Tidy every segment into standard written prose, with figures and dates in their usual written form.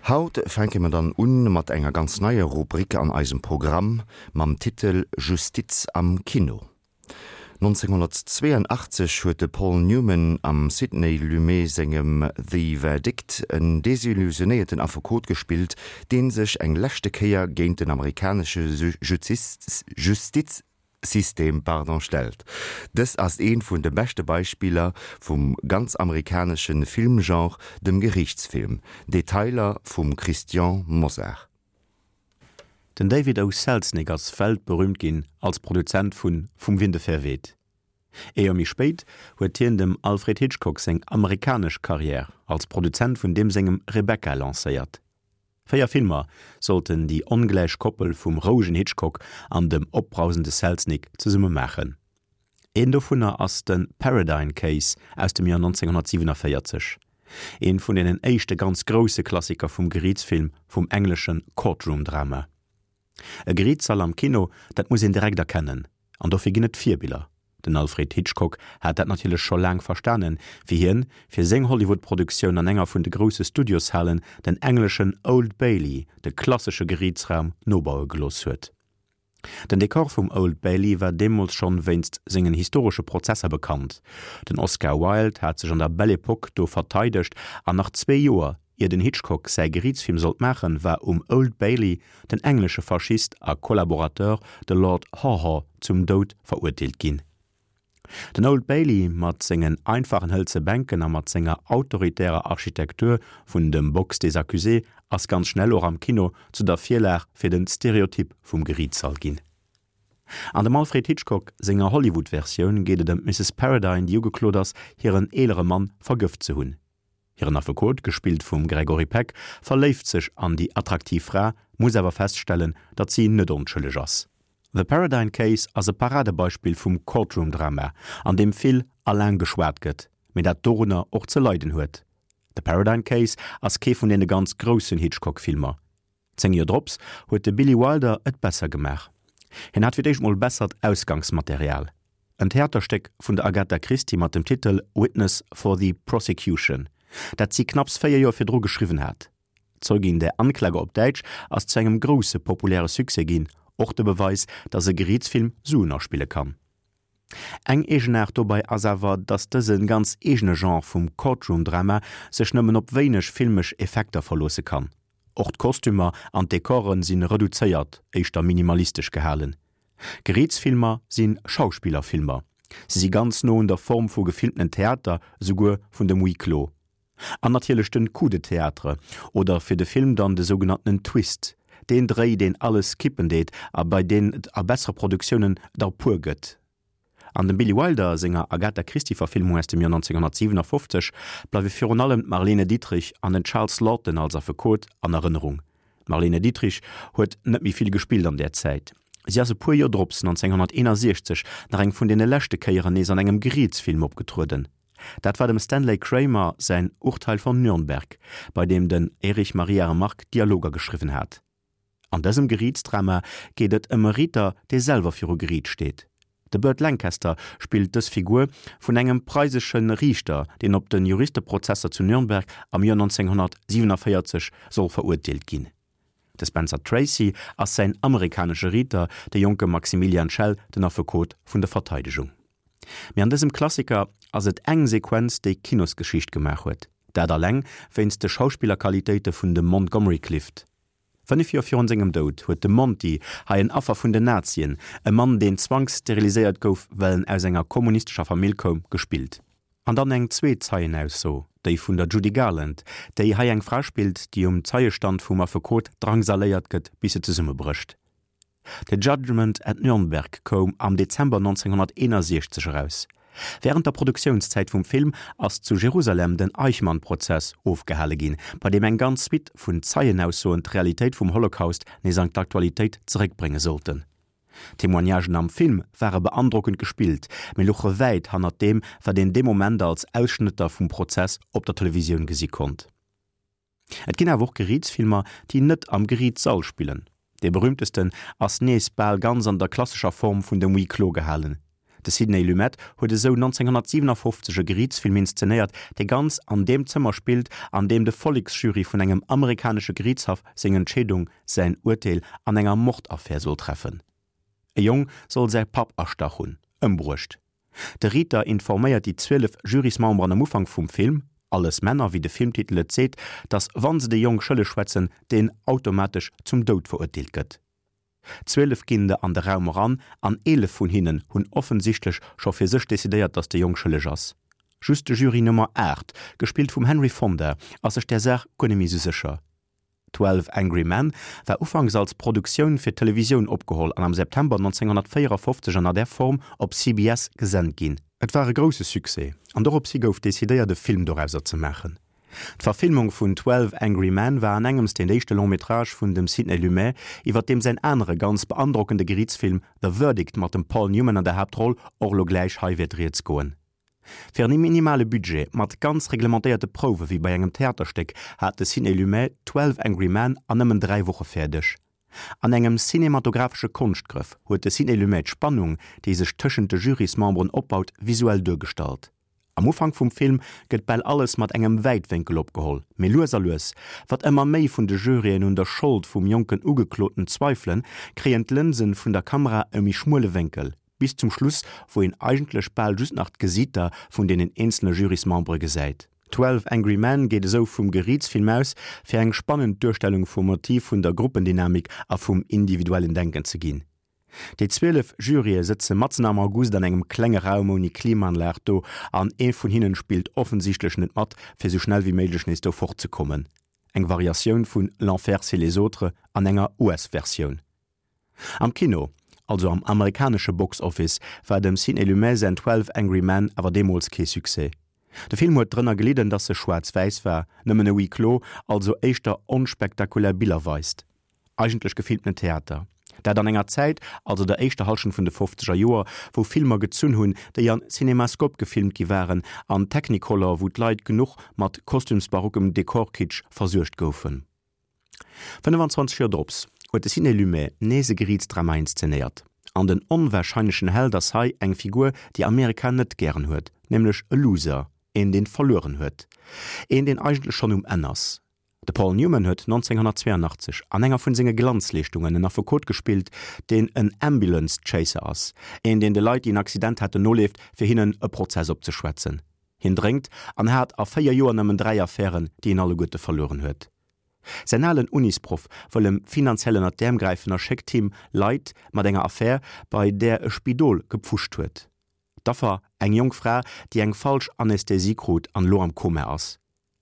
Haut fänke mer dann un mat enger ganz neier Rubrik an eisem Programm mam Titel Justiz am Kino. 1982 huet de Paul Newman am Sidney Lumet sengem The Verdict en desillusionéierten Affekot gespillt, dee sech eng leschte Kéier géint den amerikanesche Justizsystem stellt. Dëst ass eent vun de beschte Beispiller vum ganz amerikanesche Filmgenre, dem Geriichtsfilm. Detailer vum Christian Mosar. Den David O. Selznick ass weltberüümt ginn als Produzent vu Vum Winde verweht. Ee Joer méi spéit huet hien dem Alfred Hitchcock seng amerikanesch Karriär als Produzent vun deem sengem Rebecca lancéiert. 4 Filmer sollten déi ongläich Koppel vum rouegen Hitchcock an dem opbrausende Selznick zesumme maachen. Een dovunner ass de Paradine Case aus dem Joer 1947, een vun deenen éischte ganz grousse Klassiker vum Geriitsfilm, vum englesche Courtroom-Drama. E Geriitssall am Kino, dat muss een direkt erkennen, an dofir ginn et Virbiller. Den Alfred Hitchcock hat dat natierlech scho laang verstanen, wéi hien fir seng Hollywood-Produktioun an enger vun de grousse Studioshalen den engleschen Old Bailey, de klassesche Geriitsraum, nobaue gelooss huet. Den Dekor vum Old Bailey war deemools schonn wéinst sengen historesche Prozesser bekannt. Den Oscar Wilde hat sech an der Belle Epoque do verteidegt an nach zwee Joer ier den Hitchcock säi Geriitsfilm sollt maachen, war um Old Bailey den englesche Faschist a Kollaborateur, de Lord Haw-Haw, zum Doud verurteelt ginn. Den Old Bailey mat sengen einfachen hëlze Bänken a mat senger autoritärer Architektur vun dem Box des accusés ass ganz schnell och am Kino zu der Virlag fir den Stereotyp vum Geriitssall ginn. An dem Alfred Hitchcock senger Hollywood-Versioun geet et ëm d'Mrs. Paradine, déi ugeklot ass, hiren eelere Mann vergëft ze hunn. Hiren Affekot, gespillt vum Gregory Peck, verléift sech an déi attraktiv Fra, muss awer feststellen, datt si net onschëlleg ass. The Paradine Case ass e Paradebeispill vum Courtroom-Drama, an deem vill a laang geschwat gëtt, mee dat dorunner och ze leiden huet. The Paradine Case ass kee vun deene ganz groussen Hitchcock-Filmer. 10 Joer drops huet de Billy Wilder et besser gemaach. Hien hat fir d'éischt mol bessert Ausgangsmaterial, en Theaterstéck vun der Agatha Christie mat dem Titel Witness for the Prosecution, dat si knapps 4 Joer virdru geschriwwen hat. Zeugin der Anklage op Däitsch ass zu engem grousse populäre Succès ginn, och de Beweis, datt e Geriitsfilm Suen aspille kann. Eng Eegenaart dobei ass awer, datt dëse ganz eegene Genre vum Courtroom-Drama sech nëmmen op wéineg filmesch Effekter verloosse kann. Och d'Kostümer an d'Dekore si reduzéiert, éischter minimalistesch gehalen. Geriitsfilmer si Schauspillerfilmer, se si ganz no un der Form vu gefilmtenen Theater, esouguer vun dem Huis clos. An natierlech den Coup de théâtre, oder fir de Film dann de sougenanntenen Twist, deen Dréi deen alles kippen deet a bei deen et a bessere Produktiounen der e puer gëtt. An dem Billy Wilder senger Agatha Christie Verfilmung aus dem Joer 1957 bleiwe virun allem d'Marlene Dietrich an den Charles Laughton als Affekot an Erënnerung. D'Marlene Dietrich huet net méi vill gespillt an där Zäit. Si ass e puer Joer drops, 1961, nach eng vun deene leschte Kéieren nees an engem Geriitsfilm opgetrueden. Dat war dem Stanley Kramer säin Urteil von Nürnberg, bei deem den Erich Maria Remarque d'Dialoger geschriwwen hat. An dësem Geriitsdrama geet et ëm e Riiter, dee selwer viru Geriit steet. De Burt Lancaster spillt dës Figur vun engem preisesche Riichter, deen op de Juristeprozesser zu Nürnberg am Joer 1947 soll verurteelt ginn. De Spencer Tracy ass säin amerikanesche Riiter, de jonke Maximilian Schell den Affekot vun der Verteidegung. Mee an dësem Klassiker ass et eng Sequenz, déi Kinosgeschicht gemaach huet, dat alleng wéinst de Schauspillerqualitéite vun dem Montgomery Clift. 5 Joer virun sengem Doud huet de Monty, hei en Affer vun den Nazien, e Mann deen zwangssteriliséiert gouf well en aus enger kommunistescher Famill koum, gespillt. An dann eng zweet Zeienausso, déi vun der Judy Garland, déi hei eng Fra spillt, déi um Zeiestand vum Affekot drangsaléiert gëtt bis se zesummebrécht. The Judgment at Nürnberg koum am Dezember 1961 eraus. Wärend der Produktiounszäit vum Film ass zu Jerusalem den Eichmann-Prozess ofgehale ginn, bei deem eng ganz Suite vun Zeienaussoen d'Realitéit vum Holocaust nees an d'Aktualitéit zeréckbrénge sollten. D'Témoignagen am Film ware beandrockend gespillt, mee louche wäit hannert deem, wat een dee Moment als Ausschnëtter vum Prozess op der Televisioun gesi konnt. Et ginn awer och Geriitsfilmer, déi net am Geriitssall spillen. Dee berüümtesten ass nees bal ganz an der klassescher Form vun dem Huis clos gehalen. De Sidney Lumet huet esou 1957 e Geriichtsfilm inszenéiert, dee ganz an deem Zëmmer spillt, an deem de Volleksjury vun engem amerikanesche Geriichtshaff seng Entscheedung, säin Urteel an enger Mordaffär soll treffen. E Jong soll säi Papp erstach hunn, ëmbruecht. De Riiter informéiert déi 12 Jurysmemberen am Ufank vum Film, alles Männer, wéi de Filmtitel et seet, datt wann se de Jong schëlleg schwätzen, deen automatesch zum Doud verurteelt gëtt. 12 ginn der an de Raum eran an 11 vun hinnen hunn offensichtlech scho fir sech decidéiert, datt de Jong schëlleg ass. Just de Jury Nummer 8, gespillt vum Henry Fonda, ass sech där Saach guer net méi sou sécher. Twelve Angry Men war ufanks als Produktioun fir d'Televisioun opgeholl an am September 1954 an der Form op CBS gesent ginn. Et war e grousse Succès an doropshi gouf decidéiert e Film dorauser ze maachen. D'Verfilmung vun Twelve Angry Men war an engems deen éischte Long-métrage vun dem Sidney Lumet, iwwer deem säin anere ganz beandrockende Geriichtsfilm The Verdict mat dem Paul Newman an der Haaptroll och elo gläich hei wäert rieds goen. Fir en minimale Budget, mat ganz reglementéierte Prouwe wéi bei engem Theaterstéck, hat de Sidney Lumet Twelve Angry Men an nëmmen 3 Woche fäerdeg. An engem cinematographesche Konschtgrëff huet de Sidney Lumet d'Spannung, déi sech tëschent de Jurysmemberen opbaut, visuell duergestallt. Am Ufank vum Film gëtt bal alles mat engem Wäitwénkel opgeholl, mee lues a lues, wat ëmmer méi vun de Juryen un der Schold vum jonken Ugekloten zweifelen, kréien d'Lënsen vun der Kamera e méi schmuele Wénkel, bis zum Schluss, wou een eigentlech bal just nach d'Gesiiter vun deenen eenzele Jurysmembere gesäit. Twelve Angry Men geet esou vum Geriitsfilm aus, fir eng spannend Duerstellung vum Motiv vun der Gruppendynamik a vum individuellen Denken ze ginn. Déi 12 Jurye sëtze matzen am August an engem klenge Raum ouni Klimaanlag do an ee vun hinnen spillt offensichtlech net mat, fir sou schnell wéi méiglech nees do fort ze kommen. Eng Variatioun vun L'enfer c'est les autres an enger US-Versioun. Am Kino, also am amerikanesche Box Office, war dem Sidney Lumet säin 12 Angry Men awer deemools kee Succès. De Film huet drënner gelidden, dass e schwaarz-wäiss war, nëmmen e Huis clos, also éischter onspektakulär Biller weist. Eigentlech gefilmten Theater. Dat an enger Zäit, also der éischter Hallschent vun de fofzeger Joer, wou Filmer gezunn hunn, déi an Cinemascope gefilmt gi waren, an Technicolor, wou d'Leit genuch mat kostümsbarockem Dekorkitsch versuergt goufen. 25 Joer drops huet de Sidney Lumet nees e Geriitsdrama inszenéiert. An den onwahrscheinlechen Held ass hei eng Figur, déi Amerika net gären huet, nämlech e Loser, een deen verlueren huet, een deen eigentlech schonn um Enn ass. De Paul Newman huet 1982 an enger vun senge Glanzleeschtungen en Affekot gespillt, deen en Ambulance Chaser ass, een deen de Leit déi en Accident haten noleeft fir hinnen e Prozess opzeschwätzen. Hien drénkt an hat a 4 Joer nëmmen 3 Affären, déi en alleguerte verlueren huet. Säin alen Unisproff wëll em finanziell ënnert d'Äerm gräifen a schéckt him Leit mat enger Affär, bei där e Spidol gepfuscht huet. D'Affer, eng jonk Fra, déi eng falsch Anästhesie krut an elo am Koma ass.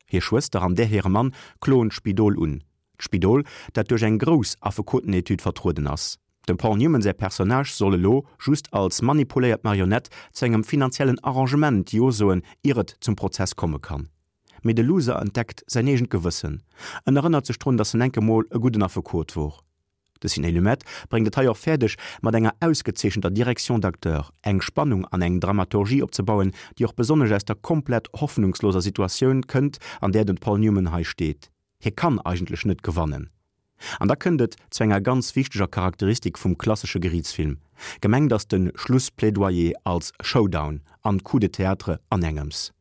Hir Schwëster an där hire Mann kloen d'Spidol un. D'Spidol, dat duerch eng grouss Affekotenetude vertrueden ass. Dem Paul Newman säi Personnage soll elo just als manipuléiert Marionett zu engem finanziellen Arrangement Jo soen, ier et zum Prozess komme kann. Mee de Loser entdeckt säin eegent Gewëssen. En erënnert sech drun, datt en enke mol e gudden Affekot wor. De Sidney Lumet bréngt et hei och fäerdeg, mat enger ausgezeechenter Direction d'acteurs eng Spannung an eng Dramaturgie opzebauen, déi och besonnesch aus der komplett hoffnungsloser Situatioun kënnt, an där den Paul Newman hei steet. Hie kann eigentlech net gewannen. An da kënnt et zu enger ganz wichteger Charakteristik vum klassesche Geriichtsfilm, Gemengt ass de Schlussplädoyer als Showdown an Coup de théâtre an engems.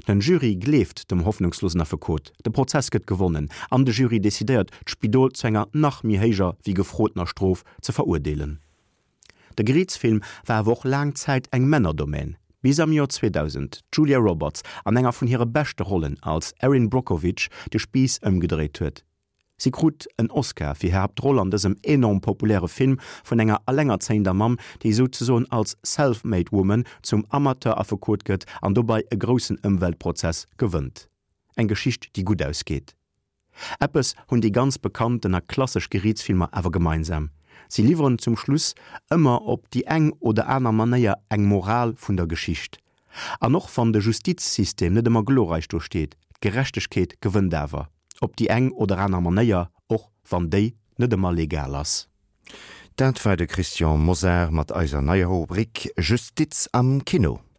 Den Jury gleeft dem hoffnungslosen Affekot, de Prozess gëtt gewonnen an de Jury decidéiert, d'Spidol zu enger nach méi héijer wéi gefrotener Strof ze verurdeelen. De Geriichtsfilm war awer och laang Zäit eng Männerdomän, bis am Joer 2000 d'Julia Roberts an enger vun hire beschte Rollen als Erin Brockovich de Spiiss ëmgedréit huet. Si krut en Oscar fir hir Haaptroll an dësem enorm populäre Film vun enger allengerzéiender Mamm, déi souzesoen als Self-made woman zum Amateur-Affekot gëtt an dobei e groussen Ëmweltprozess gewënnt. Eng Geschicht, déi gutt ausgeet. Eppes hunn déi ganz bekannten a klassesch Geriitsfilmer awer gemeinsam, Si liwweren zum Schluss ëmmer op déi eng oder aner Manéier eng Moral vun der Geschicht. An och wann de Justizsystem net ëmmer glorreich do steet, d'Gerechtegkeet gewënnt awer. Op déi eng oder aner Manéier, och wann déi net ëmmer legal ass. Dat war de Christian Mosar mat eiser neier Rubrik Justiz am Kino.